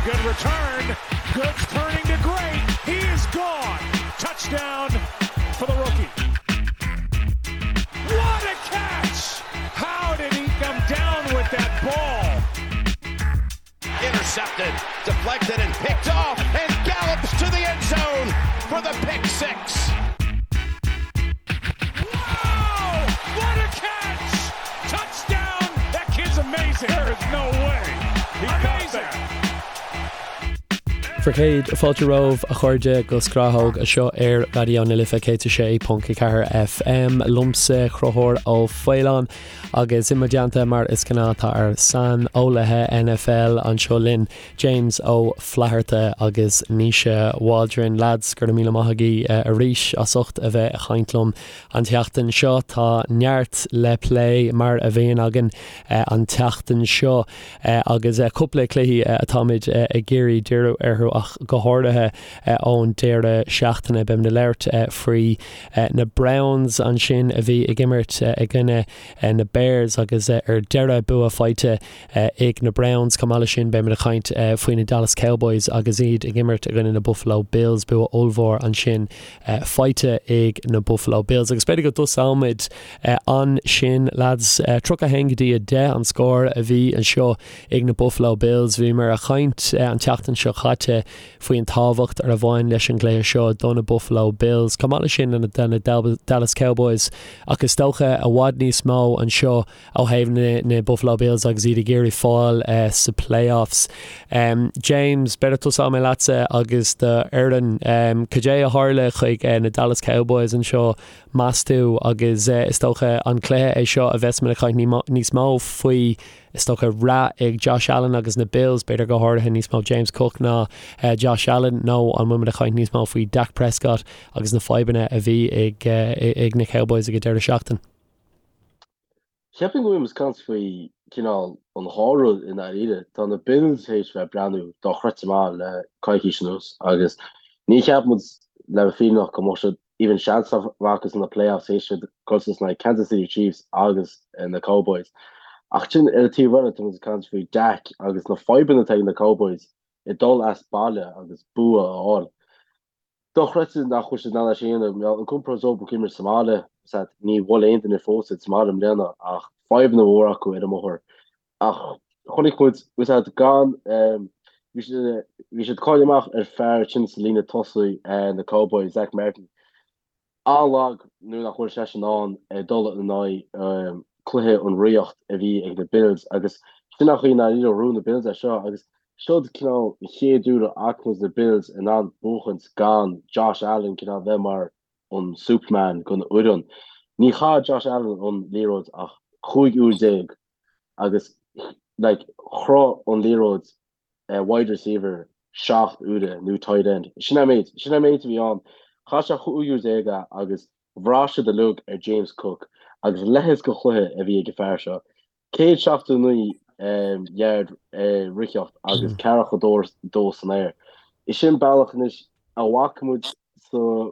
Good return. Good turning to great. He is gone. Touchdown for the rookie. What a catch! How did he come down with that ball? Intercepted, deflected, and picked off, and gallops to the end zone for the pick 6. Wow! What a catch! Touchdown! That kid's amazing. There is no way. He amazing. Bhur gcéad fáilte romhaibh a chairde go Scrathóg anseo ar Raidió na Life 106.4 FM. Liomsa Conchúr Ó Faoláin agus i mo dteannta mar is gnáth tá ár saineolaithe NFL anseo linn, James Ó Flatharta agus Naoise Waldron. Lads, go raibh míle maith agaibh arís as ucht a bheith ag caint liom an tseachtain seo. Tá neart le plé mar a bhíonn againn an tseachtain seo agus cúpla cluichí atáimid ag iarraidh díriú orthu ach go háirithe ón deireadh seachtaine. Beimid ag labhairt faoi na Browns ansin a bhí ag imirt i gcoinne na Bears agus ar deireadh bua faighte ag na Browns. Chomh maith leis sin beimid ag caint faoi na Dallas Cowboys agus iad ag imirt i gcoinne na Buffalo Bills, bua ollmhór ansin faighte ag na Buffalo Bills. Agus b'fhéidir go dtosóimid ansin lads. 31 go dtí 10 an scór a bhí anseo ag na Buffalo Bills. Bhíomar ag caint an tseachtain seo caite faoin tábhacht a bhain leis an gcluiche seo do na Buffalo Bills, chomh maith leis sin do na Dallas Cowboys ach is dócha i bhfad níos mó anseo ó thaobh na Buffalo Bills agus iad ag iarraidh fáil sa playoffs. James, b'fhéidir tosóidh mé leatsa agus do fhoireann. Cad é a tharla chuig na Dallas Cowboys anseo, meas tú, agus is dócha an cluiche é seo a bheas muid ag caint níos mó faoi, is dócha, rath ag Josh Allen agus na Bills, b'fhéidir go háirithe níos mó James Cook ná Josh Allen, nó an bhfuil muid ag caint níos mó faoi Dak Prescott agus na fadhbanna a bhí ag na Cowboys ag an deireadh seachtaine? Cheapfainn go bhfuil muid ag caint faoi cineál an dhá rud i ndáiríre. Tá na Bills théis bheith ag breathnú dochreidte maith le coicís anuas agus ní cheap muid le bheith fírinneach go mbeadh siad even seans acu sna playoffs théis siad dul suas in aghaidh Kansas City Chiefs agus na Cowboys. Ach sin ar an taobh eile tá muid ag caint faoi Dak agus na fadhbanna atá ag na Cowboys ag dul as baile agus bua a fháil. Dochreidte nach bhfuil siad in ann é sin a dhéanamh. An compord dóibh ag imirt sa mbaile, ní bhuail aon duine fós iad sa mbaile i mbliana ach fadhbanna mhóra acu ar an mbóthar. Ach chonaic muid, bhí gan, bhí siad, bhí siad cáilithe amach ar fear sin sa líne tosaigh na Cowboys, Zack Martin. An-lag nuair nach bhfuil seisean in ann dul in aghaidh cluiche an riocht a bhí ag na Bills agus sin an chaoi i ndáiríre a ghnóthaigh na Bills é seo agus seod cineál an chéad uair a fhaca muid na Bills in ann buachaint gan Josh Allen cineál bheith mar an Superman don fhoireann. Ní chaith Josh Allen an liathróid ach 15 uair agus like chroith an liathróid wide receiver 7 uaire nó tight end. Sin an méid, sin an méid a bhí ann. Chaith sé 15 uair é agus bhraith siad uilig ar James Cook agus leithéid de chluiche a bhí ag an fear seo. 179 yard ritheacht agus ceathracha dó san aer. Is sin bealach anois a bhfaca muid sa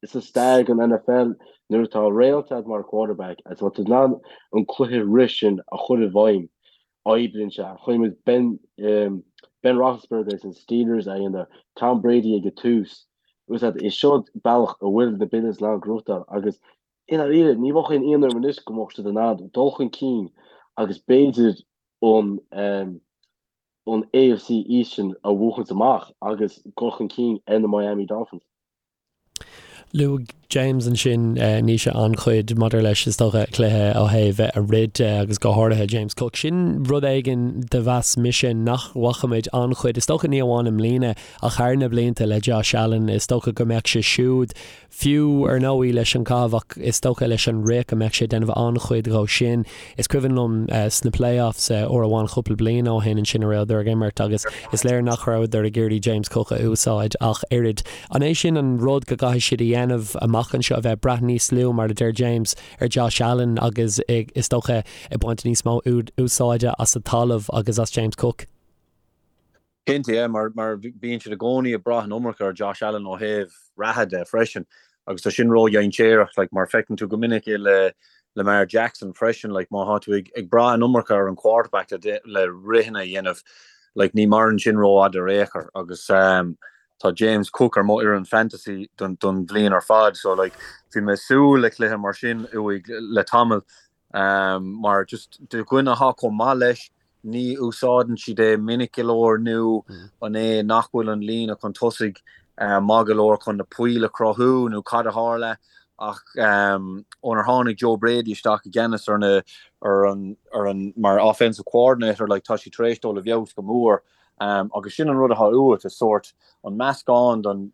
sa stair den NFL nuair atá réalt agat mar quarterback agus má tá tú in ann an cluiche rith sin a chur i bhfeidhm, oibríonn sé. Chonaic muid Ben Ben Roethlisberger agus an Steelers a dhéanamh, Tom Brady ag an tús. Is seo bealach a bhfuil na Bills in ann gnóthachtáil agus i ndáiríre ní bheadh aon ionadh orm anois go mbeadh siad in ann dul chun cinn agus b'fhéidir an an AFC East sin a bhuachaint amach agus dul chun cinn ar na Miami Dolphins. Luaigh James ansin Naoise an-chuid maidir leis is dócha cluiche ó thaobh a rith de agus go háirithe James Cook. Sin rud éigin do mheas mise nach bhfaca muid an-chuid, is dócha ní amháin i mbliana ach thar na blianta le Josh Allen. Is dócha go mbeadh sé siúd Fiú, ar ndóigh, leis an gcaitheamh ach is dócha leis an rith go mbeadh sé ag déanamh an-chuid dhó sin. Is cuimhin liom sna playoffs uair amháin cúpla bliain ó shin ansin a rabhadar ag imirt agus is léir nach rabhadar ag iarraidh James Cook a úsáid ach oiread. An é sin an rud go gcaithfidh siad a dhéanamh amach anseo, a bheith ag brath níos lú, mar a deir James, ar Josh Allen agus is dócha ag baint níos mó úsáide as an talamh agus as James Cook? Cinnte, yeah, mar bíonn siad i gcónaí ag brath an iomarca ar Josh Allen ó thaobh reatha de freisin agus tá sin ródhainséarach, like, mar feiceann tú go minic é le Lamar Jackson freisin, like, má tá tú ag brath an iomarca ar an quarterback le, le ritheanna a dhéanamh, Like ní maireann sin rófhada ar aon chor agus tá James Cook ar mo fhoireann fantasy don don bhliain ar fad so like bhí mé ag súil le cluiche mar sin uaidh le tamall mar just do dhuine atá chomh maith leis ní úsáideann siad é minic go leor nó an é nach bhfuil an líne chun tosaigh maith go leor chun na poill a chruthú nó cad a tharla ach ónar tháinig Joe Brady isteach i gceannas ar na ar an ar an mar offensive coordinator like tá sé tar éis dul i bhfeabhas go mór agus sin an rud atá uait is sórt an meascán don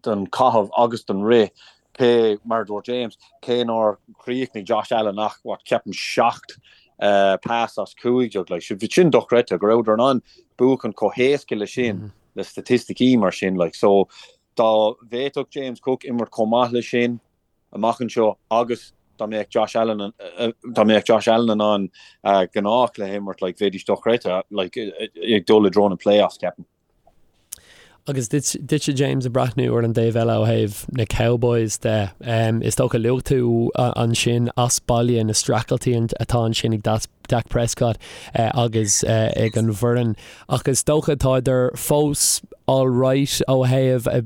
don chaitheamh agus don rith, cé, mar a dúirt James, cé nár chríochnaigh Josh Allen ach, what, ceapaim 7 pass as 15, like, sin dochreidte, go rabhadar in ann buachan chomh héasca le sin, le staitisticí mar sin, like, so dá bhféadfadh James Cook imirt chomh maith le sin amach anseo agus dá mbeadh Josh Allen, dá mbeadh Josh Allen in ann gnáthchluiche a imirt, like, bheidís dochreidte, like, ag dul i dtreo na playoffs, ceapaim. Agus duitse James ag breathnú ar an dtaobh eile ó thaobh na Cowboys de, is dócha luaigh tú ansin as baile na streachailtí atá ansin ag Dak Prescott agus ag an bhfoireann ach is dócha tádar fós alright ó thaobh ag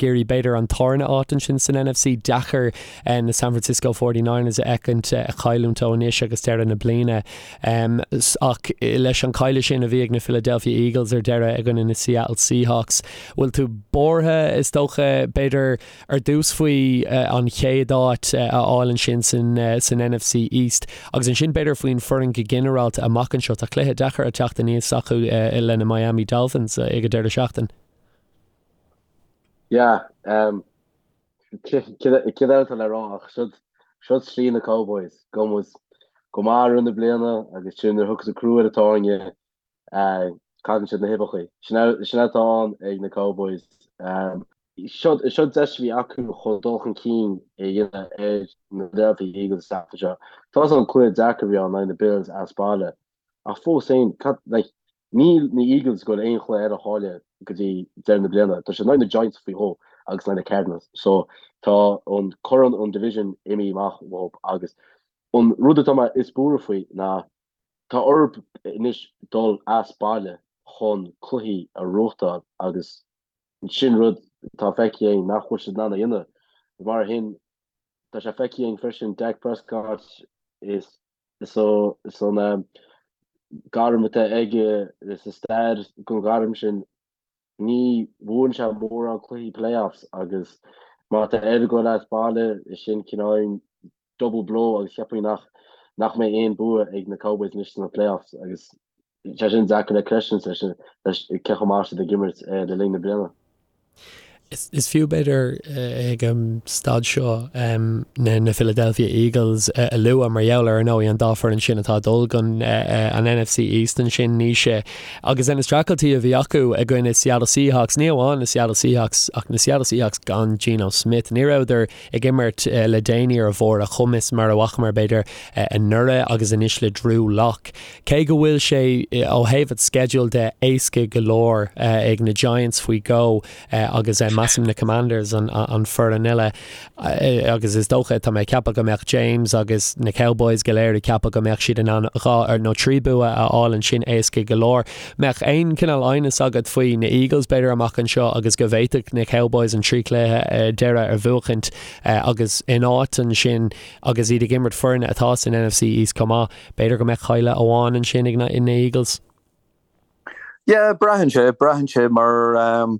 iarraidh b'fhéidir an tarna áit ansin san NFC. Deacair na San Francisco 49ers a fheicint ag cailliúint ó anois agus deireadh na bliana. Ach leis an cailleadh sin a bhí ag na Philadelphia Eagles ar deireadh i gcoinne na Seattle Seahawks, bhfuil tú buartha, is dócha, b'fhéidir, ar dtús faoi an chéad áit a fháil ansin san NFC East agus ansin b'fhéidir faoin foireann go ginearálta amach anseo. Tá cluiche deacair ag teacht aníos acu le na Miami Dolphins ag an deireadh seachtaine. Yeah, Cad eile atá le rá ach siod slí na Cowboys. Gabhann muid go maith i rith na bliana agus sin nuair a thiocfas an crú ar an tairne cailleann siad na huibheacha. Sin atá ann ag na Cowboys. Siod deis a bhí acu chun dul chun cinn a dhéanamh ar na Philadelphia Eagles an tseachtain seo. Tá fhios agam cluiche deacair a bhí ann in aghaidh na Bills as baile Ach fós féin, cad, like, níl na Eagles ag goil aon chluiche eile a chailleadh go dtí deireadh na bliana. Tá siad in aghaidh na Giants faoi dhó agus in aghaidh na Cardinals. So, tá an corn an division imithe amach uathu agus an rud atá mé is buartha faoi ná tá orthu anois dul as baile chun cluichí a ghnóthachtáil agus sin rud atá feicthe againn nach bhfuil siad in ann a dhéanamh. Mar sin, tá sé feicthe againn freisin Dak Prescott is Is an gairm atá aige is an stair den ghairm sin, ní bhuann sé mórán cluichí playoffs agus má tá air dul as baile, is sin cineál double blow agus cheapfainn nach nach mbeidh aon bua ag na Cowboys anois sna playoffs agus sé sin deacair le creistiúint leis cé chomh maith siad ag imirt le linn na bliana. Is fiú b'fhéidir ag an staid seo na Philadelphia Eagles a lua mar gheall ar, ar ndóigh, an dá foireann sin atá ag dul don an NFC East ansin, Naoise, agus na streachailtí a bhí acu i gcoinne Seattle Seahawks, ní amháin na Seattle Seahawks ach na Seattle Seahawks gan Geno Smith. Ní rabhadar ag imirt le déanaí ar bharr a chumais mar a bhfacamar b'fhéidir anuraidh agus anois le Drew Lock. Cé go bhfuil sé ó thaobh an sceidil de éasca go leor ag na Giants faoi dhó agus measaim na Commanders an foireann eile agus is dócha, tá mé ag ceapadh go mbeadh James agus na Cowboys go léir ag ceapadh go mbeadh siad in ann dhá nó trí bua a fháil ansin éasca go leor. Mbeadh aon cineál aighneas agat faoi na Eagles b'fhéidir amach anseo agus go bhféadfadh na Cowboys an trí chluiche deireadh a bhuachaint agus in áit ansin agus iad ag imirt foirne atá san NFC East chomh maith. B'fhéidir go mbeadh cailleadh amháin ansin ag na Eagles. Yeah, braitheann sé, braitheann sé mar um,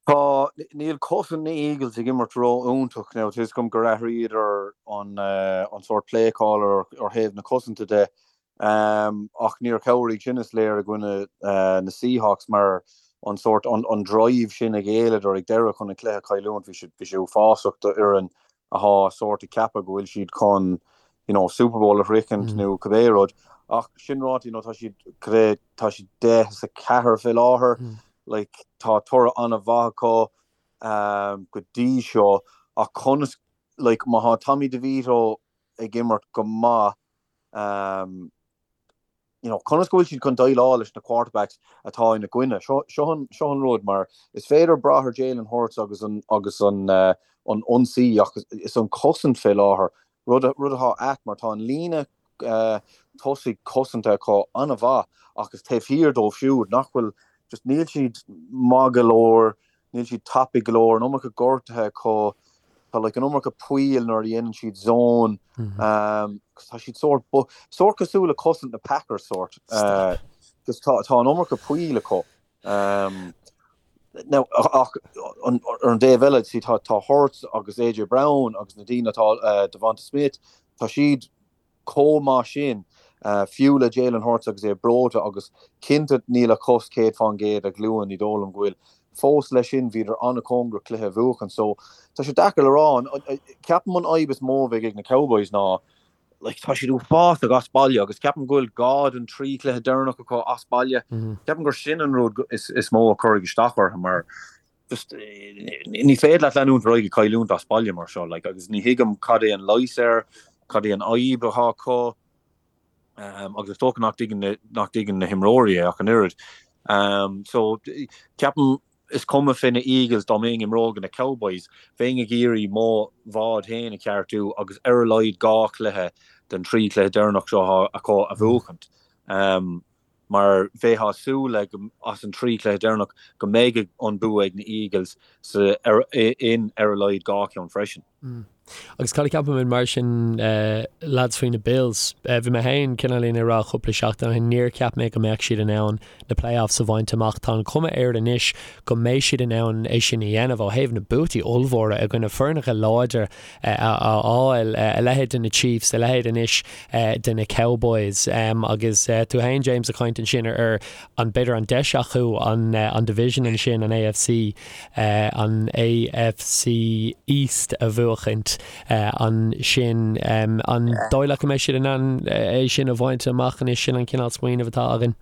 tá, níl cosaint na Eagles ag imirt ró-iontach now, tá fhios agam gur athraíodar an, uh, an sórt play caller ar thaobh na cosanta de, um, ach níor chabhraigh sin is léir i gcoinne uh, na Seahawks mar an sórt, an, an drive sin a ghéilleadar ag deireadh chun an cluiche a chailliúint, bhí sé, bhí sé uafásach do fhoireann athá sórt ag ceapadh go bhfuil siad chun you know Super Bowl a shroichint nó cibé rud ach sin ráite you know tá siad cad é tá siad 10 is 4 fé láthair like tá toradh an-mhaith acu um, go dtí seo ach conas like má thá Tommy DeVito ag imirt go maith um, you know, conas go bhfuil siad chun déileáil leis na quarterbacks atá ina gcoinne. Seo, seo an, seo an rud, mar is féidir brath ar Jalen Hurts agus an, agus an, uh, an ionsaí ach is an cosaint fé láthair, rud, rud atá ait mar tá an líne tosaigh cosanta acu an-mhaith ach is taobh thiar dóibh siúd nach bhfuil just níl siad maith go leor, níl siad tapaidh go leor, an iomarca gortuithe acu, tá like an iomarca poill nuair a dhéanann siad zone, tá siad sórt, sórt cosúil le cosaint na Packers sórt, just tá tá an iomarca poill acu. Now ach ar an dtaobh eile see tá tá Hurts agus AJ Brown agus na daoine atá DeVonta Smith, tá siad chomh maith sin, fiú le Jalen Hurts agus é breoite agus cinnte níl a chos 100% a ghlúin, ní dóigh liom go bhfuil. Fós leis sin, bhíodar an-chóngarach cluiche a bhuachan so tá sé deacair le rá. Ceapaim an fhadhb is mó a bheidh ag na Cowboys ná like tá siad uafásach as baile agus ceapaim go bhfuil dhá den trí chluiche deireanach acu as baile. Ceapaim gur sin an rud is mó a chuirfidh isteach orthu mar just ní féidir leat leanúint ar aghaidh ag cailliúint as baile mar seo like agus ní thuigim cad é an leigheas air, cad é an fhadhb atá acu um, agus is dócha nach dtuigeann na, nach dtuigeann na himreoirí é ach an oiread. Um, so ceapaim is cuma fé na Eagles dá mbeinn ag imirt na Cowboys, bheinn ag iarraidh mo bhád féin a cheartú agus ar a laghad dhá chluiche den trí chluiche deireanach seo acu a bhuachaint. Um, mar bheifeá ag súil le go as an trí chluiche deireanach go mbeidh an bua ag na Eagles sa in ar a laghad dhá cheann freisin. Agus cad a cheapaimid mar sin lads faoi na Bills? Bhí mé féin cineáilín ag rá cúpla seachtain ó shin níor cheap mé go mbeadh siad in ann na playoffs a bhaint amach. Tá an chuma air anois go mbeidh siad in ann é sin a dhéanamh ó thaobh na buataí ollmhóra i gcoinne foirneacha láidir a fháil, a leithéid de na Chiefs, a leithéid anois de na Cowboys. Agus tú féin, James, ag caint ansin ar an, b'fhéidir an deis acu an division ansin, an AFC, an AFC East a bhuachaint ansin. An dóigh leat go mbeidh siad in ann é sin a bhaint amach anois? Sin an cineál smaoineamh atá againn.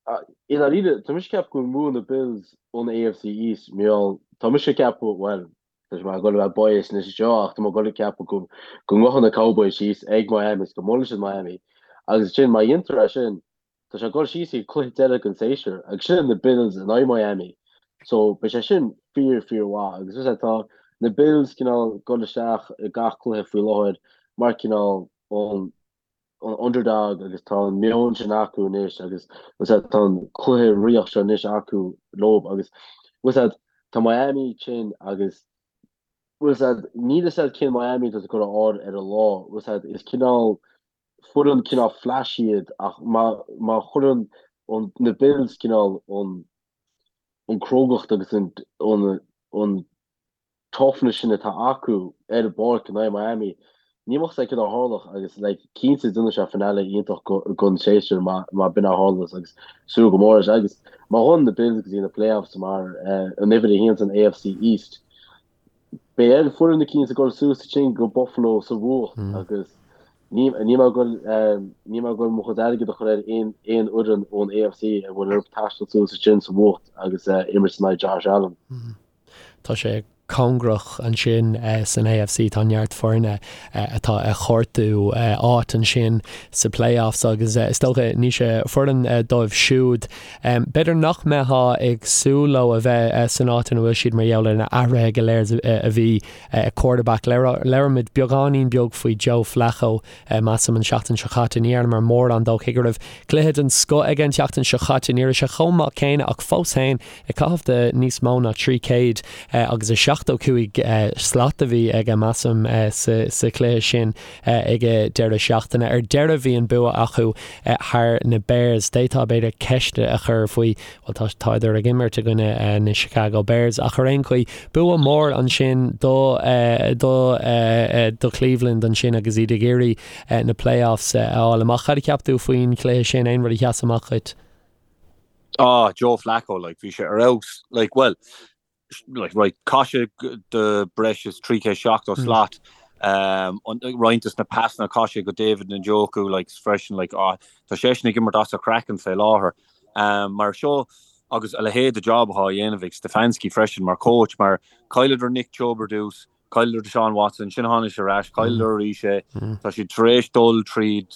I ndáiríre, tá mise ag ceapadh go mbuafaidh na Bills an AFC East, mar gheall, tá mise ag ceapadh, bhuel, tá mé ag dul a bheith biased anois anseo ach tá mé ag dul ag ceapadh go go ngabhfaidh na Cowboys síos ag Miami is go mbuailfidh siad Miami agus ansin má dhéantar é sin, tá sé ag dul síos ag cluiche deiridh den séasúr agus sin na Bills in aghaidh Miami. So beidh sé sin fíor fíor mhaith agus is tá na Bills cineál ag dul isteach i gach cluiche faoi láthair mar cineál an an underdog agus tá an meon sin acu anois agus tá an cluiche ríocht seo anois acu leo agus bhfuil tá Miami tinn agus bhfuil níl a fhios agat cén Miami atá tú ag dul a fháil ar an lá bhfuil is cineál foireann cineál flash iad ach má má chuireann an na Bills cineál an an crógacht agus an an an toughness sin atá acu ar an bpáirc in aghaidh Miami, ní bheadh a fhios agat céard a tharlódh agus like cinnte déanfaidh sé finale iontach don séasúr má má b'in a tharlós agus súil go mór leis agus má ghabhann na Bills go dtí na playoffs mar an uimhir a haon san AFC East beidh ar foireann eicínt ag dul suas ansin go Buffalo sa bhfuacht agus ní níl mé ag dul níl mé ag dul mo chuid airgid a chur ar aon aon fhoireann ón AFC a bhfuil orthu taisteal suas ansin sa bhfuacht agus imirt in aghaidh Josh Allen. Tá sé cóngarach ansin san AFC, tá neart foirne atá ag cuartú áit ansin sa playoffs agus is dócha Naoise foireann dóibh siúd b'fhéidir nach mbeifeá ag súil leo a bheith san áit ina bhfuil siad mar gheall ar na athruithe go léir a bhí ag quarterback. Labhair muid beagáinín beag faoi Joe Flacco measaim an seachtain seo caite. Ní dhearnamar mórán dó cé go raibh cluiche den scoth aige an tseachtain seo caite. Ní raibh sé chomh maith céanna ach fós féin ag caitheamh de níos mó ná 300 agus 75 slat a bhí aige, measaim, sa chluiche sin ag an deireadh seachtaine. Ar deireadh bhí an bua acu thar na Bears. D'fhéadfá b'fhéidir ceist a chur faoi, bhuel tá tádar ag imirt i gcoinne na Chicago Bears ach ar aon chaoi, bua mór ansin do do do Cleveland ansin agus iad ag iarraidh na playoffs a fháil amach. Cad a cheap tú faoin chluiche sin? Aon rud a sheas amach dhuit? Ah, Joe Flacco, like, bhí sé ar fheabhas, like, well, like, right, chaith sé do breis is 370 slat, um, roinnt des na pasanna chaith sé go David Njoku, like, freisin, like, ah, tá seisean ag imirt as a chraiceann fé láthair. Um, mar seo, agus a leithéid de job atá á dhéanamh ag Stefanski freisin mar coach, mar chailleadar Nick Chubb ar dtús, Chailleadar Deshaun Watson, ansin tháinig sé ar ais, chailleadar arís é. Tá siad tar éis dul tríd,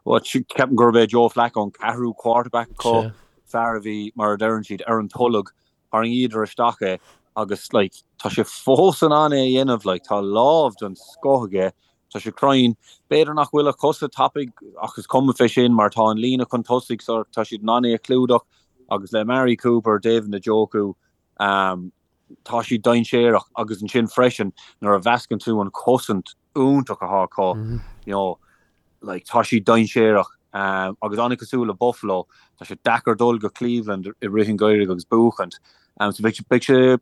ceapaim gurb é Joe Flacco an ceathrú quarterback acu, fear a bhí, mar a deireann siad, ar an tolg, tharraingíodar isteach é agus like tá sé fós in ann é a dhéanamh, like tá lámh den scoth aige. Tá sé cruinn. B'fhéidir nach bhfuil a chosa tapaidh ach is cuma fé sin mar tá an líne chun tosaigh so tá siad in ann é a chlúdach agus le Amari Cooper, David Njoku, tá siad dainséarach agus ansin freisin nuair a mheascann tú an chosaint iontach atá acu, you know, like tá siad dainséarach agus an-cosúil le Buffalo, tá sé deacair dul go Cleveland i rith an gheimhridh agus buachaint. So beidh beidh sé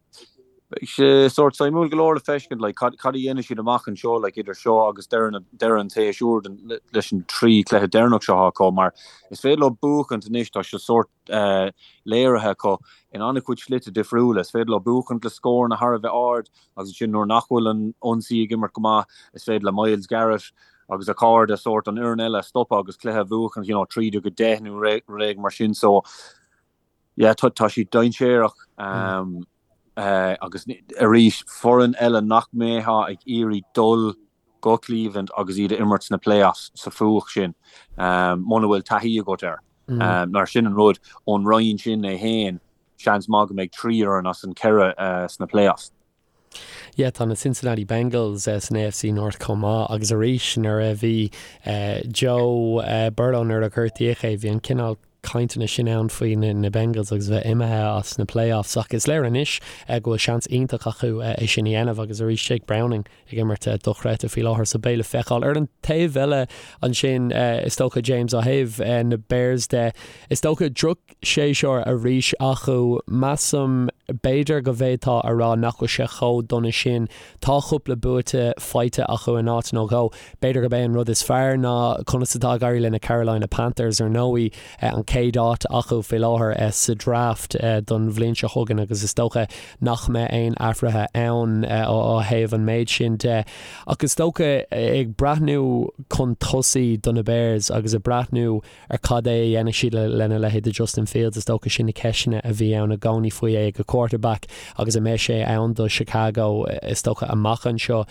beidh sé sórt suimiúil go leor le feiscint like cad cad a dhéanfaidh siad amach anseo like idir seo agus deireadh na deireadh an tséasúir den leis an trí chluiche deireanach seo atá acu mar is féidir leo buachaint anois tá sé sórt léirithe acu in an-chuid slite difriúla. Is féidir leo buachaint le scóranna thar a bheith ard agus ansin nuair nach bhfuil an ionsaí ag imirt go maith, is féidir le Myles Garrett agus a chairde sórt an fhoireann eile a stopadh agus cluiche a bhuachaint, you know, 13-10 nó rud éigin mar sin. So, yeah, tá tá siad dainséarach agus arís foireann eile nach mbeifeá ag iarraidh dul go Cleveland agus iad a imirt sna playoffs sa fuacht sin muna bhfuil taithí agat air. Mar sin an rud, ón roinn sin é féin, seans maith go mbeidh 3 fhoireann as an 4 sna playoffs. Yeah, tá na Cincinnati Bengals san AFC North chomh maith agus arís nuair a bhí Joe Burrow nuair a gortaíodh é, bhí an cineál cainteanna sin ann faoi na Bengals agus bheith imithe as na playoffs ach is léir anois go bhfuil seans iontach acu é sin a dhéanamh agus arís Jake Browning ag imirt dochreidte faoi láthair so beidh le feiceáil. Ar an taobh eile ansin is dócha James ó thaobh na Bears de is dócha drochshéasúr arís acu. Measaim b'fhéidir go bhféadfá a rá nach bhfuil sé chomh dona sin. Tá cúpla buaite faighte acu in áit nó dhó. B'fhéidir gurb é an rud is fearr ná conas atá ag éirí le na Carolina Panthers ar ndóigh, an chéad áit acu faoi láthair sa draft don bhliain seo chugainn agus is dócha nach mbeidh aon athruithe ann ó thaobh an méid sin de. Ach is dócha ag breathnú chun tosaigh do na Bears agus ag breathnú ar cad é a dhéanfaidh siad lena leithéid de Justin Fields, is dócha sin na ceisteanna a bhí ann i gcónaí faoi é ag quarterback agus an mbeidh sé ann do Chicago is dócha amach anseo.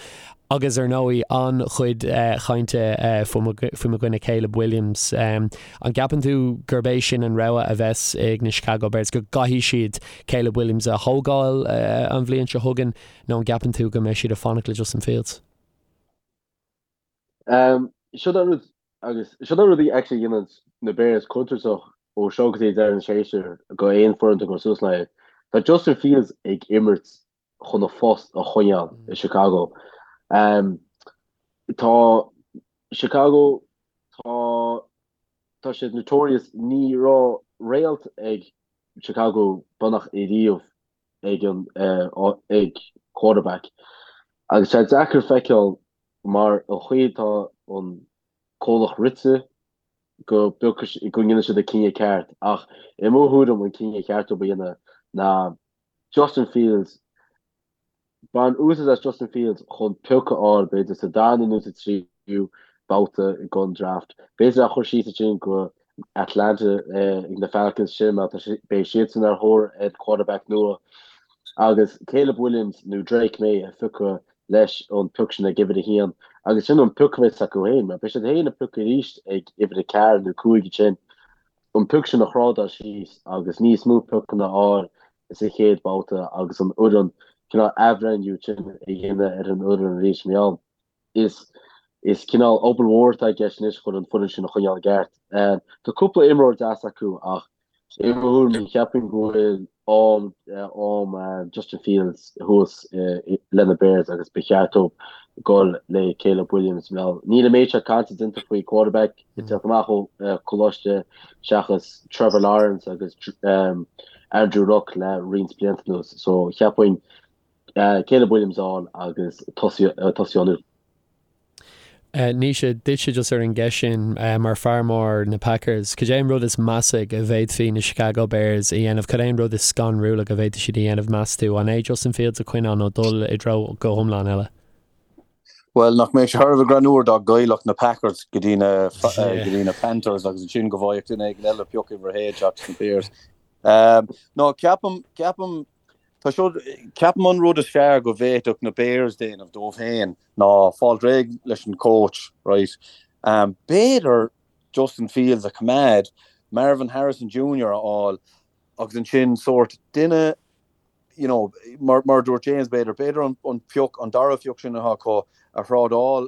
Agus ar ndóigh an-chuid chainte faoi mo dhuine Caleb Williams. An gceapann tú gurb é sin an rogha a bheas ag na Chicago Bears, go gcaithfidh siad Caleb Williams a thógáil an bhliain seo chugainn nó an gceapann tú go mbeidh siad ag fanacht le Justin Fields? Seo an rud agus seo an rud a actually dhéanann na Bears contúirteach ó seo go dtí deireadh an tséasúir go aon foireann atá ag cur suas leo. Tá Justin Fields ag imirt chun a phost a choinneáil i Chicago. Tá Chicago, tá tá siad notorious, ní raibh réalt ag Chicago beagnach ariamh ag an ag quarterback. Agus tá sé deacair feiceáil mar an chaoi atá an comhlacht rite go go ndéanfaidh siad an cinneadh ceart ach i mo thuairim an cinneadh ceart a dhéanamh ná Justin Fields, Bain úsáid as Justin Fields chun pioc a fháil, b'fhéidir sa darna nó sa tríú babhta den draft. B'fhéidir é a chur síos ansin go Atlanta ag na Falcons sin mar beidh siadsan ar thóir ar quarterback nua. Agus Caleb Williams nó Drake Maye a phiocadh leis an pioc sin ag uimhir a haon. Agus sin an pioc a bheas acu féin mar beidh siad féin ag piocadh arís ag uimhir a ceathair nó cúig ansin. an pioc sin a thrádáil síos agus níos mó piocanna a fháil sa chéad bhabhta agus an fhoireann cineál athbhreithniú sin a dhéanamh ar an fhoireann arís mar gheall is is cineál obair mhór atá i gceist anois chun an foireann sin a choinneáil i gceart. Tá cúpla imreoir deas acu ach i mo thuairim cheapfainn go bhfuil am am Justin Fields thuas le na Bears agus ba cheart dóibh dul le Caleb Williams. Níl an méid seo cainte déanta faoi quarterback ag teacht amach ó choláiste seachas Trevor Lawrence agus Andrew Luck le roinnt blianta anuas. So cheapfainn Caleb Williams a fháil agus tosaí ann. Naoise, duitse just ar an gceist sin, mar fear mór na Packers, cad é an rud is measa go bhféadfaí na Chicago Bears a dhéanamh? Cad é an rud is scanrúla go bhféadfadh siad a dhéanamh, meas tú? An é Justin Fields a choinneáil nó dul i dtreo go hiomlán eile? Bhuel, nach mbeadh sé thar a bheith greannmhar dá gcaillfeadh na Packers go dtí na go dtí na Panthers agus ansin go bhfaigheadh duine éigin eile pioc uimhir a haon seachas na Bears. No, ceapaim, ceapaim, tá seo, ceapaim an rud is fearr go bhféadfadh na Bears déanamh dóibh féin ná fáil réidh leis an coach, right? B'fhéidir Justin Fields a choimeád, Marvin Harrison Jr. a fháil agus ansin sórt duine you know, mar, mar a dúirt James, b'fhéidir, b'fhéidir an, an pioc, an dara phioc sin atá acu a thrádáil.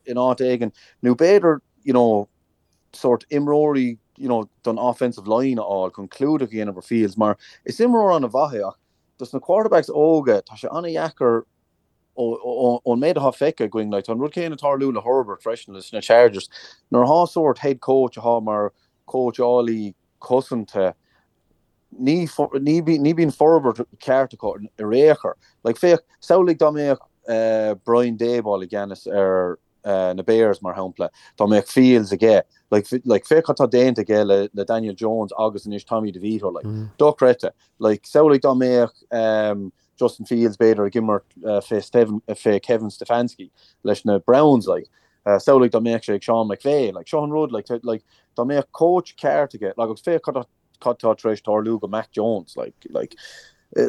in áit éigin nó b'fhéidir you know sórt imreoirí you know don offensive line a fháil chun clúdach a dhéanamh ar Fields mar is imreoir an-mhaith é ach dos na quarterbacks óga tá sé an-dheacair ón méid atá feicthe againn like tá an rud céanna ag tarlú le Herbert freisin leis na Chargers nuair atá sórt head coach atá mar cóitseálaí cosanta ní ní ní bíonn forbairt ceart acu ar aon chor. Like féach, samhlaigh dá mbeadh Brian Daboll i gceannas ar na Bears mar shampla, dá mbeadh Fields aige, like like féach cad tá déanta aige le le Daniel Jones agus anois Tommy DeVito, like dochreidte. Like samhlaigh dá mbeadh Justin Fields b'fhéidir ag imirt fé Steven fé Kevin Stefanski leis na Browns, like samhlaigh dá mbeadh sé ag Sean McVay, like seo an rud, like like dá mbeadh coach ceart aige, like agus féach cad tá cad tá tar éis tarlú go Mac Jones, like, like,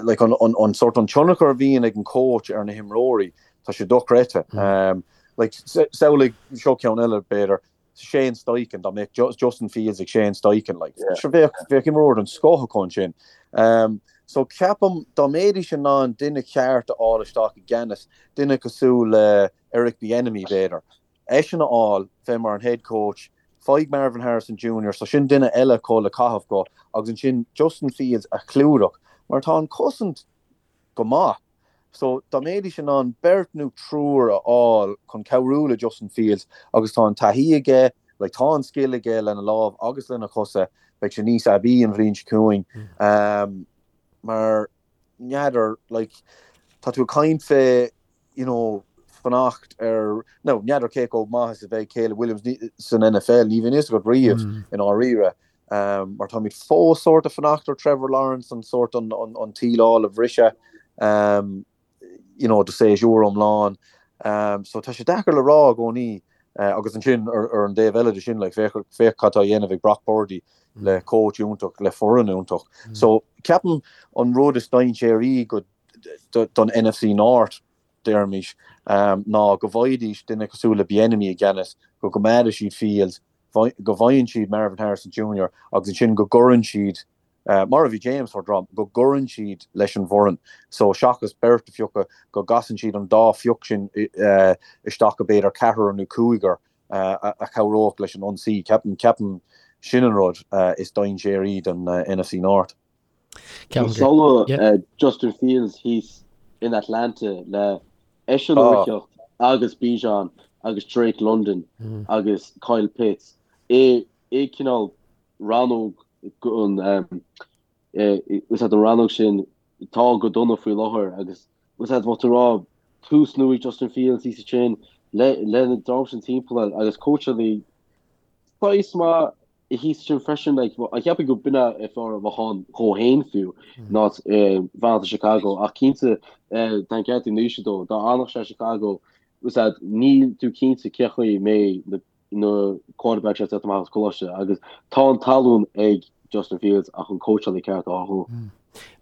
like an, an, an sort an tionchar a bhíonn ag an coach ar na himreoirí, tá sé dochreidte. Um, like, samhlaigh seo ceann eile b'fhéidir, Shane Steichen, dá mbeadh Justin Fields ag Shane Steichen, like, yeah. sure, bheadh, bheadh imreoir den scoth acu ansin. Um, so ceapaim dá mbeidís in ann duine ceart a fháil isteach i gceannas, duine cosúil le Eric Bieniemy b'fhéidir, eisean a fháil bheith mar an head coach, faigh Marvin Harrison Junior, so sin duine eile acu le caitheamh go, agus ansin Justin Fields a chlúdach, mar tá an cosaint go maith. So dá mbeidís in ann beirt nó triúr a fháil chun cabhrú le Justin Fields, agus tá an taithí aige, like tá an scil aige lena lámh agus lena chosa, beidh sé níos aibí an bhliain seo chugainn. Um, mar n'fheadar, like, tá tú ag caint fé you know, fanacht ar, nó n'fheadar cé chomh maith is a bheidh Caleb Williams san NFL, ní bhíonn fhios agat riamh i ndáiríre, mar táimid fós sórt ag fanacht ar Trevor Lawrence an sórt an an tsíleáil a bhriseadh, you know, do séasúr iomlán. So tá sé deacair le rá i gcónaí agus ansin ar an dtaobh eile de sin, like, féach féach cad tá á dhéanamh ag Brock Purdy le coach iontach, le foireann iontach. So ceapaim an rud is dainséaraí go don NFC North, deirimis, ná go bhfaighidís duine cosúil le Bieniemy i gceannas, go gcoimeádfaidh siad Fields, go bhfaigheann siad Marvin Harrison Junior agus ansin go gcuireann siad, mar a bhí James ag rá, go gcuireann siad leis an bhfoireann. So seachas beirt a phiocadh, go gcasann siad an dá phioc sin isteach go b'fhéidir ceathrar nó cúigear a chabhródh leis an ionsaí. Ceapaim, ceapaim sin an rud is dainséaraí don NFC North. Samhlaigh Justin Fields thíos in Atlanta le eisean ag teacht agus Bijan agus Drake London agus Kyle Pitts i i cineál rannóg an is an rannóg sin tá go dona faoi láthair agus is é bheadh tú rá tús nua ag Justin Fields thíos ansin le le na dream sin timpeall agus cóitseálaí saghas maith thíos ansin freisin, like, cheapfainn go b'in é fearr a bheadh ann dhó fhéin fiú ná fanacht i Chicago ach cinnte tá an ceart ag Naoise dó, dá fhanfadh sé i Chicago is ea níl tú cinnte cé chaoi a mbeidh na na quarterbacks ag teacht amach as coláiste agus tá an talún ag Justin Fields ach an cóitseálaí ceart a fháil dhó.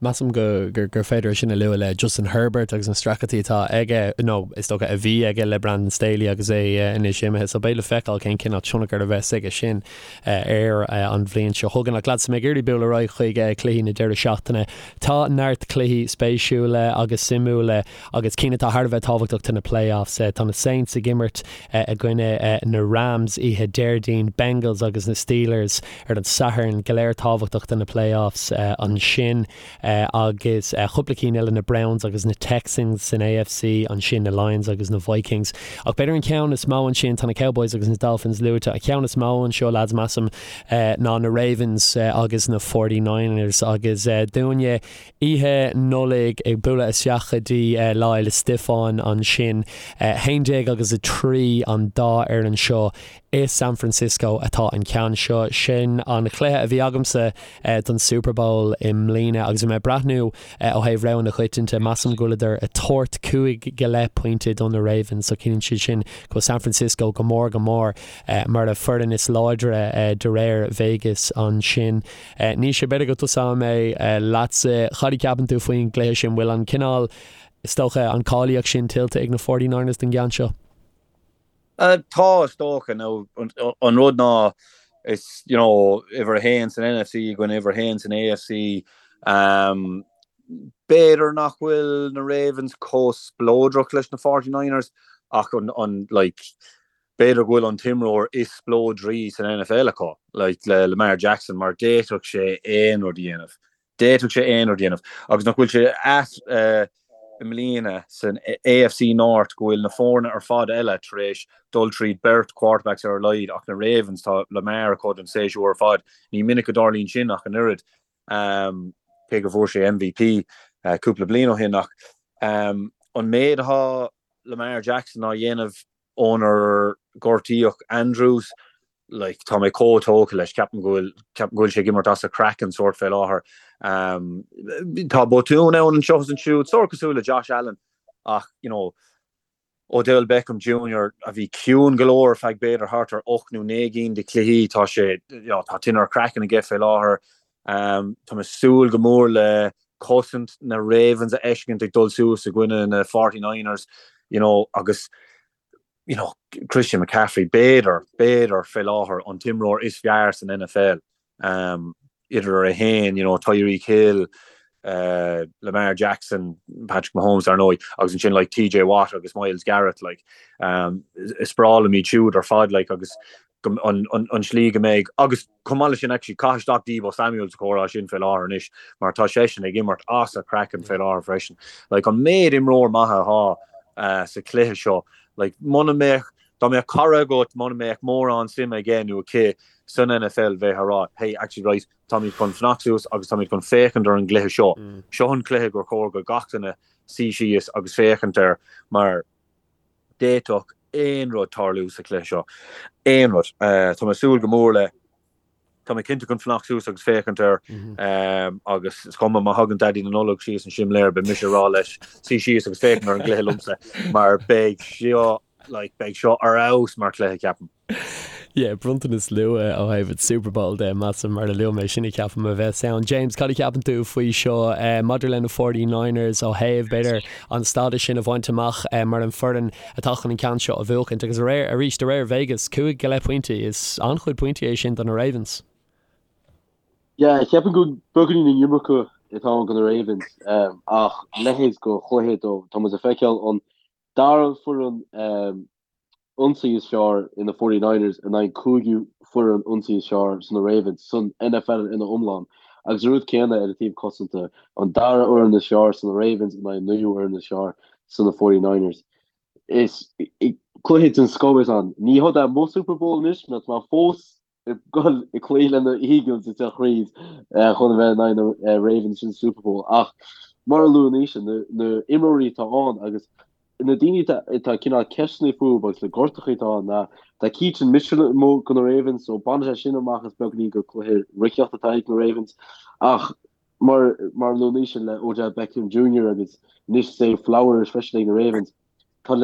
Measaim go gur féidir é sin a lua le Justin Herbert agus na streachailtí atá aige, nó is dócha a bhí aige le Brandon Staley agus é anois imithe. So beidh le feiceáil cén cineál tionchar a bheas aige sin air an bhliain seo chugainn. Ach lads, tá mé ag iarraidh bualadh ar aghaidh chuig cluichí na deireadh seachtaine. Tá neart cluichí spéisiúla agus suimiúla agus cinn atá thar a bheith tábhachtach do na playoffs. Tá na Saints ag imirt i gcoinne na Rams oíche Déardaoin, Bengals agus na Steelers ar an Satharn, go léir tábhachtach do na playoffs ansin agus cúpla cinn eile, na Browns agus na Texans san AFC, ansin na Lions agus na Vikings. Ach b'fhéidir an ceann is mó ansin, tá na Cowboys agus na Dolphins luaite, an ceann is mó anseo lads measaim ná na Ravens agus na 49ers agus dúinne Oíche Nollag ag bualadh isteach go dtí Lá Fhéile Stiofáin ansin. 11 agus 3 an dá fhoireann seo i San Francisco atá an ceann seo. Sin an chluiche a bhí agamsa don Super Bowl i mbliana agus bhí mé ag breathnú ó thaobh rogha na coitianta, measaim go bhfuileadar ag tabhairt cúig go leith pointe do na Ravens so ciallaíonn sé sin go bhfuil San Francisco go mór go mór mar an foireann is láidre de réir Vegas ansin. Naoise, b'fhéidir go dtosóidh mé leatsa. Cad a cheapann tú faoin gcluiche sin? Bhfuil an cineál, is dócha, an cáilíocht sin tuillte ag na Forty Niners don gceann seo? Tá, is dócha. Now, an rud ná, is, you know, uimhir a haon san NFC i gcoinne uimhir a haon san AFC. B'fhéidir nach bhfuil na Ravens chomh spleodrach leis na Forty Niners. Ach an, an, like, b'fhéidir go bhfuil an t-imreoir is spleodraí san NFL acu, like, le Lamar Jackson, mar d'fhéadfadh sé aon rud a dhéanamh. D'fhéadfadh sé aon rud a dhéanamh. Agus nach bhfuil sé ait i mbliana san AFC North go bhfuil na foirne ar fad eile tar éis dul tríd beirt quarterbacks ar a laghad ach na Ravens, tá Lamar acu don séasúr ar fad. Ní minic a dtarlaíonn sin ach an oiread. Cé go bhfuair sé MVP cúpla bliain ó shin ach an méid atá Lamar Jackson á dhéanamh ónar gortaíodh Andrews, like, tá mé chomh tógtha leis, ceapaim go bhfuil, ceapaim go bhfuil sé ag imirt as a chraiceann sórt fé láthair. Tá botún ann anseo is ansiúd, sórt cosúil le Josh Allen ach, you know, Odell Beckham Junior a bhí ciúin go leor ar feadh b'fhéidir thart ar 8 nó 9 gcinn de chluichí, tá sé, you know, tá tine ar a chraiceann aige fé láthair. Tá mé ag súil go mór le cosaint na Ravens a fheiscint ag dul suas i gcoinne na 49ers, you know, agus, you know, Christian McCaffrey, b'fhéidir, b'fhéidir, fé láthair, an t-imreoir is fearr san NFL, um, idir é féin, you know, Tyreek Hill, uh, Lamar Jackson, Patrick Mahomes, ar ndóigh, agus ansin, like, TJ Watt agus Myles Garrett, like, um, is breá liom iad siúd ar fad, like, agus an tslí go mbeidh, agus chomh maith leis sin actually caith isteach Deebo Samuel sa chomhrá sin fé láthair anois mar tá seisean ag imirt as a chraiceann fé láthair freisin. Like an méid imreoir maith atá sa chluiche seo, like muna mbeadh, dá mbeadh cara agat muna mbeadh mórán suime aige nó aici san NFL bheifeá ag rá hey actually right táimid chun fanacht suas agus táimid chun féachaint ar an gcluiche seo. Seo an cluiche gur chóir go gach duine suí síos agus féachaint air mar D'fhéadfadh aon rud tarlú sa chluiche seo. Aon rud. Tá mé ag súil go mór le. Tá mé cinnte chun fanacht suas agus féachaint air agus is cuma má thagann Daidí na Nollag síos an simléar beidh mise ag rá leis suí síos agus féachaint ar an gcluiche liomsa mar beidh seo like beidh seo ar fheabhas mar chluiche ceapaim. Yeah, bronntanas luath ó thaobh an Super Bowl de, measaim, mar a luaigh mé, sin a cheapaim a bheas ann. James, cad a cheapann tú faoi seo maidir le na 49ers ó thaobh, b'fhéidir, an stádas sin a bhaint amach mar an foireann atá chun an ceann seo a bhuachaint? Agus aréir, arís, de réir Vegas, 5 go leith pointí, is an-chuid pointí é sin do na Ravens. Yeah, cheapfainn go beagáinín an iomarca atá ann do na Ravens, ach leithéid de chluiche dó, tá muid ag feiceáil an dara foireann ionsaí is fearr in na 49ers in aghaidh an cúigiú foireann ionsaí is fearr san na Ravens san NFL ina iomlán. Agus an rud céanna ar an taobh cosanta, an dara fhoireann is fearr san na Ravens in aghaidh an naoú fhoireann is fearr san na 49ers. Is cluiche den scoth é ann. Ní hé é mo Super Bowl anois, mar tá mé fós ag dul ag cloí le na Eagles ag teacht thríd chun a bheith in aghaidh na Ravens sin Super Bowl ach mar a luaigh Naoise na na imreoirí atá ann agus na daoine atá cineál ceisteanna fúthu agus na gortachaí atá ann ná tá Keaton Mitchell amuigh do na Ravens so baineann sé sin amach as beagáinín gur cluiche reathaíochta atá ag na Ravens ach mar mar a luaigh Naoise le Odell Beckham Jr. agus anois Zay Flowers freisin ag na Ravens Tá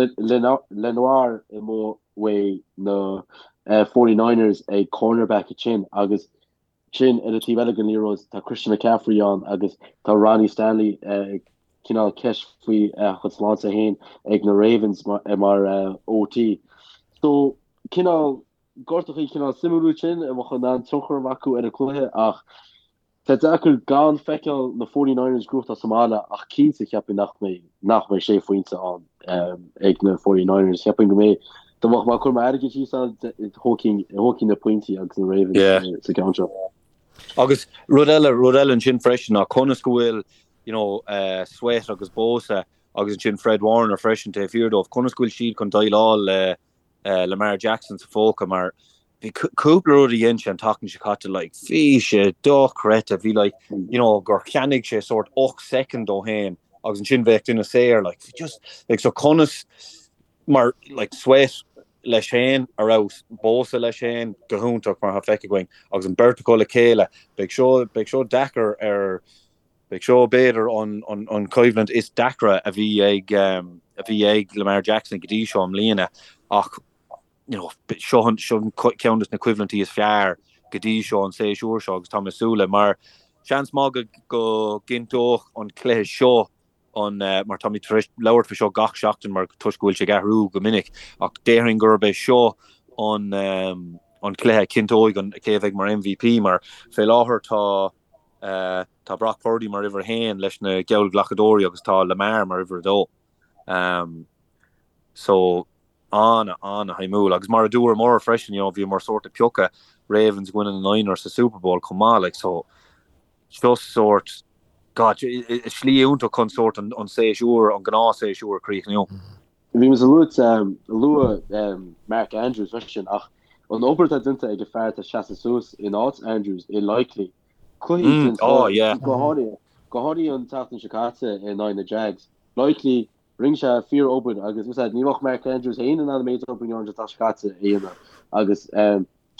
Lenoir amuigh uaidh na 49ers ag cornerback ansin agus ansin ar an taobh eile den liathróid tá Christian McCaffrey ann agus tá Ronnie Stanley cineál ceist faoi a chuid sláinte féin ag na Ravens mar OT. So cineál gortachaí cineál suimiúil sin a bheadh in ann tionchar a bheith acu ar an cluiche ach Tá deacair gan feiceáil na 49ers gnóthachtáil sa mbaile ach cinnte cheapfainn nach mbeidh nach mbeidh sé phointe ann ag na 49ers. Cheapfainn go mbeidh dá mbeadh mé ag cur m'airgead síos ann thógfainn thógfainn na pointí agus na Ravens Yeah. sa gceann seo. Agus rud eile, rud eile ansin freisin ná conas go bhfuil you know, uh, Sweat agus Bosa agus ansin Fred Warner freisin taobh thiar dóibh, conas go bhfuil siad chun déileáil le Lamar Jackson sa phóca mar bhí cúpla rud a dhein sé an tseachtain seo caite like bhí sé dochreidte bhí like you know gur cheannaigh sé sort 8 soicind dó féin agus ansin bheadh duine saor like just like so conas mar like Sweat leis féin ar fheabhas Bosa leis féin go hiontach mar atá feicthe againn agus an beirt acu le chéile beidh seo beidh seo deacair ar Beidh seo b'fhéidir an choimhlint is deacra a bhí ag a bhí ag Lamar Jackson go dtí seo i mbliana ach you know seo an seo ceann de na coimhlintí is fearr go dtí seo an séasúr seo agus tá mé ag súil le mar seans maith go go gcinnteodh an cluiche seo an mar táimid tar éis labhairt faoi seo gach seachtain mar toisc go bhfuil sé ag athrú go minic ach déarfainn gurb é seo an an cluiche a chinnteoidh an cé a bheidh mar MVP mar fé láthair tá Tá Brock Purdy mar uimhir a haon leis na geallghlacadóirí agus tá Lamar mar uimhir a dó. So, An-an-shuimiúil agus mar a dúramar freisin, you know, bhíomar sórt ag piocadh Ravens i gcoinne na Niners sa Super Bowl chomh maith, like, so just sórt, God, is slí iontach chun sórt an séasúr, an gnáthshéasúr a chríochnú. Bhí mise ag lua Mark Andrews freisin ach an obair atá déanta ag an fear atá ag seasamh suas in áit Andrews i Likely, cluichí den scoth, go háirithe, go háirithe an tseachtain seo caite in aghaidh na Jags. Likely, rinne sé fíor-obair agus ní bheadh Mark Andrews féin in ann an méid obair an tseachtain seo caite a dhéanamh agus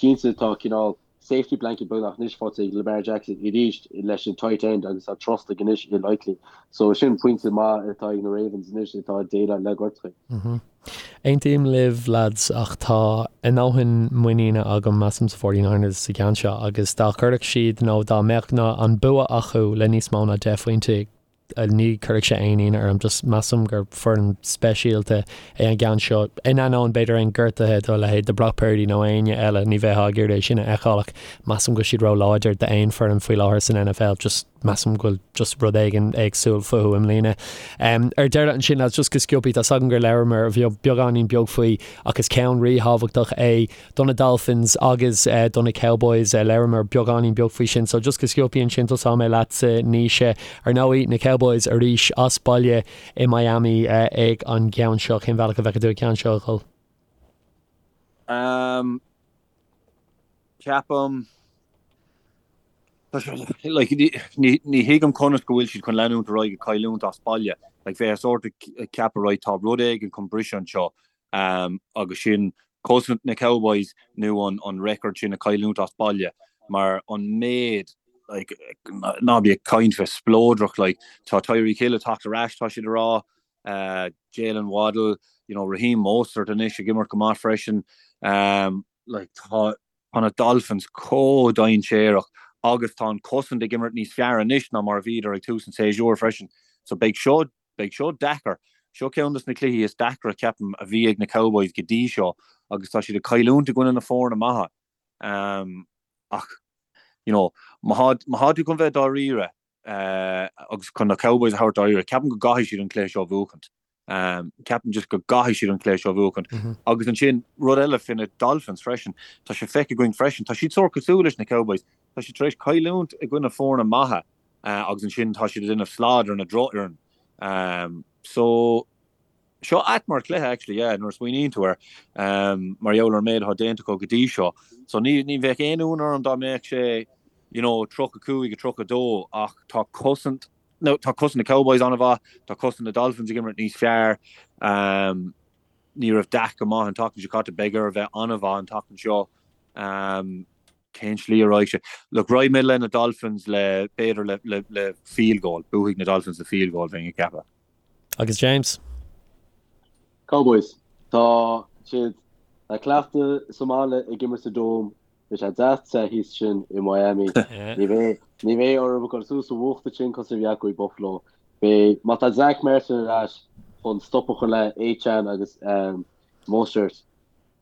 cinnte tá cineál safety blanket beagnach anois faighte ag Lamar Jackson arís leis an tight end agus tá trust aige anois i Likely. So sin pointe maith atá ag na Ravens anois atá ag déileáil le gortuithe. Aontaím libh lads ach tá a ndóthain muiníne agam measaim sa 49ers sa gceann seo agus dá gcuirfeadh siad nó dá mbeadh an bua acu le níos mó ná 10 phointe ní chuirfeadh sé aon ionadh orm, just measaim gur foireann speisialta é an gceann seo. In ainneoin b'fhéidir aon gortuithe do leithéid de Brock Purdy nó éinne eile, ní bheifeá ag iarraidh é sin a fheiceáil ach measaim go bhfuil siad ró-láidir d'aon foireann faoi láthair san NFL, just measaim go bhfuil just rud éigin éagsúil fúthu i mbliana. Ar deireadh ansin, lads, just go sciobtha, tá's agam gur labhramar beagáinín beag faoi ach is ceann ríthábhachtach é do na Dolphins agus do na Cowboys. Labhramar beagáinín beag faoi sin, so just go sciobtha ansin tosóidh mé leatsa, Naoise. Ar ndóigh, na Cowboys arís as baile i Miami ag an gceann seo. Cén bhealach a bhfeiceann tú an ceann seo a dhul? Ceapaim, like, ní thuigim conas go bhfuil siad chun leanúint ar aghaidh ag cailliúint as baile. Like, bheifeá sórt ag ceapadh, right, tá rud éigin chun briseadh anseo. agus sin cosaint na Cowboys nó an record sin ag cailliúint as baile mar an méid like ná bí ag caint fé spleodrach like tá Tyreek Hill ag teacht ar ais tá siad ag rá uh, Jalen Waddle you know Raheem Mostert anois ag imirt go maith freisin um, like tá tá na Dolphins chomh dainséarach agus tá an cosaint ag imirt níos fearr anois ná mar a bhíodar ag tús an tséasúir freisin so beidh seo Beidh seo deacair. Seo ceann de na cluichí is deacra, ceapaim, a bhí ag na Cowboys go dtí seo agus tá siad ag cailliúint i gcoinne na foirne maithe. Ach, you know, má tá tú chun bheith dáiríre agus chun na Cowboys a thabhairt dáiríre, ceapaim go gcaithfidh siad an cluiche seo a bhuachaint. Ceapaim just go gcaithfidh siad an cluiche seo a bhuachaint. Agus ansin, rud eile fé na Dolphins freisin, tá sé feicthe againn freisin, tá siad sórt cosúil leis na Cowboys, tá siad tar éis cailliúint i gcoinne foirne maithe. agus ansin tá siad ag déanamh slad ar na drochfhoireann. So, seo ait mar chluiche actually, yeah, nuair a smaoiníonn tú air, mar gheall ar an méid atá déanta acu go dtí seo. So ní, ní bheadh aon ionadh orm dá mbeadh sé, you know, 35, 32 ach tá cosaint, no, tá cosaint na Cowboys an-mhaith, tá cosaint na Dolphins ag imirt níos fearr. Ní raibh Dak go maith an tseachtain seo caite, beidh air a bheith an-mhaith an tseachtain seo. Cén slí a raghaidh sé? Look, raghaidh mé le na Dolphins le, b'fhéidir le, le, le field goal. Buafaidh na Dolphins le field goal, bheinn ag ceapadh. Agus James? Cowboys. Tá siad le cleachtadh sa mbaile ag imirt sa Dome. Beidh sé deas te thíos ansin i Miami. Ní bheidh, ní bheidh orthu ag dul suas sa bhfuacht ansin cosúil a bhí acu i Buffalo. Beidh, má tá Zack Martin ar ais chun stop a chur le Achane agus Mostert,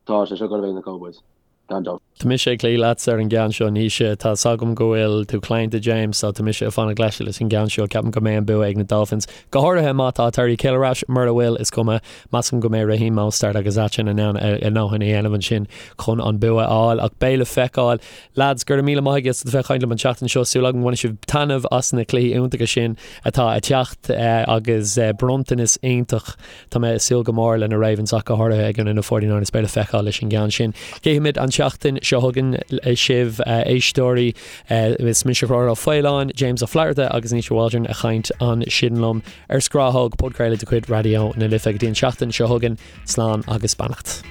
Tá sé seo ag dul a bheith ag na Cowboys, gan dabht. Tá mise ag cloí leatsa ar an gceann seo, Naoise. Tá 's agam go bhfuil tú claonta, James, so tá mise ag fanacht leis leis an gceann seo. Ceapaim go mbeidh an bua ag na Dolphins, go háirithe má tá Tyreek Hill ar ais. Mura bhfuil, is cuma. Measaim go mbeidh Raheem Mostert agus Achane in ann a ndóthain a dhéanamh ansin chun an bua a fháil. Ach beidh le feiceáil. Lads, go raibh míle maith agaibh as bheith ag caint liom an tseachtain seo. Súil agam go mbainfidh sibh taitneamh as na cluichí iontacha sin atá ag teacht agus bronntanas iontach Tá mé ag súil go mór le na Ravens ach go háirithe i gcoinne na 49ers beidh le feiceáil leis an gceann sin. Cífimid an tseachtain seo chugainn sibh éisteoirí. Is mise Conchúr Ó Faoláin, James Ó Flatharta agus Naoise Waldron ag caint ansin liom ar Scrathóg, podchraoladh de chuid Raidió na Life. Go dtí an tseachtain seo chugainn, slán agus beannacht.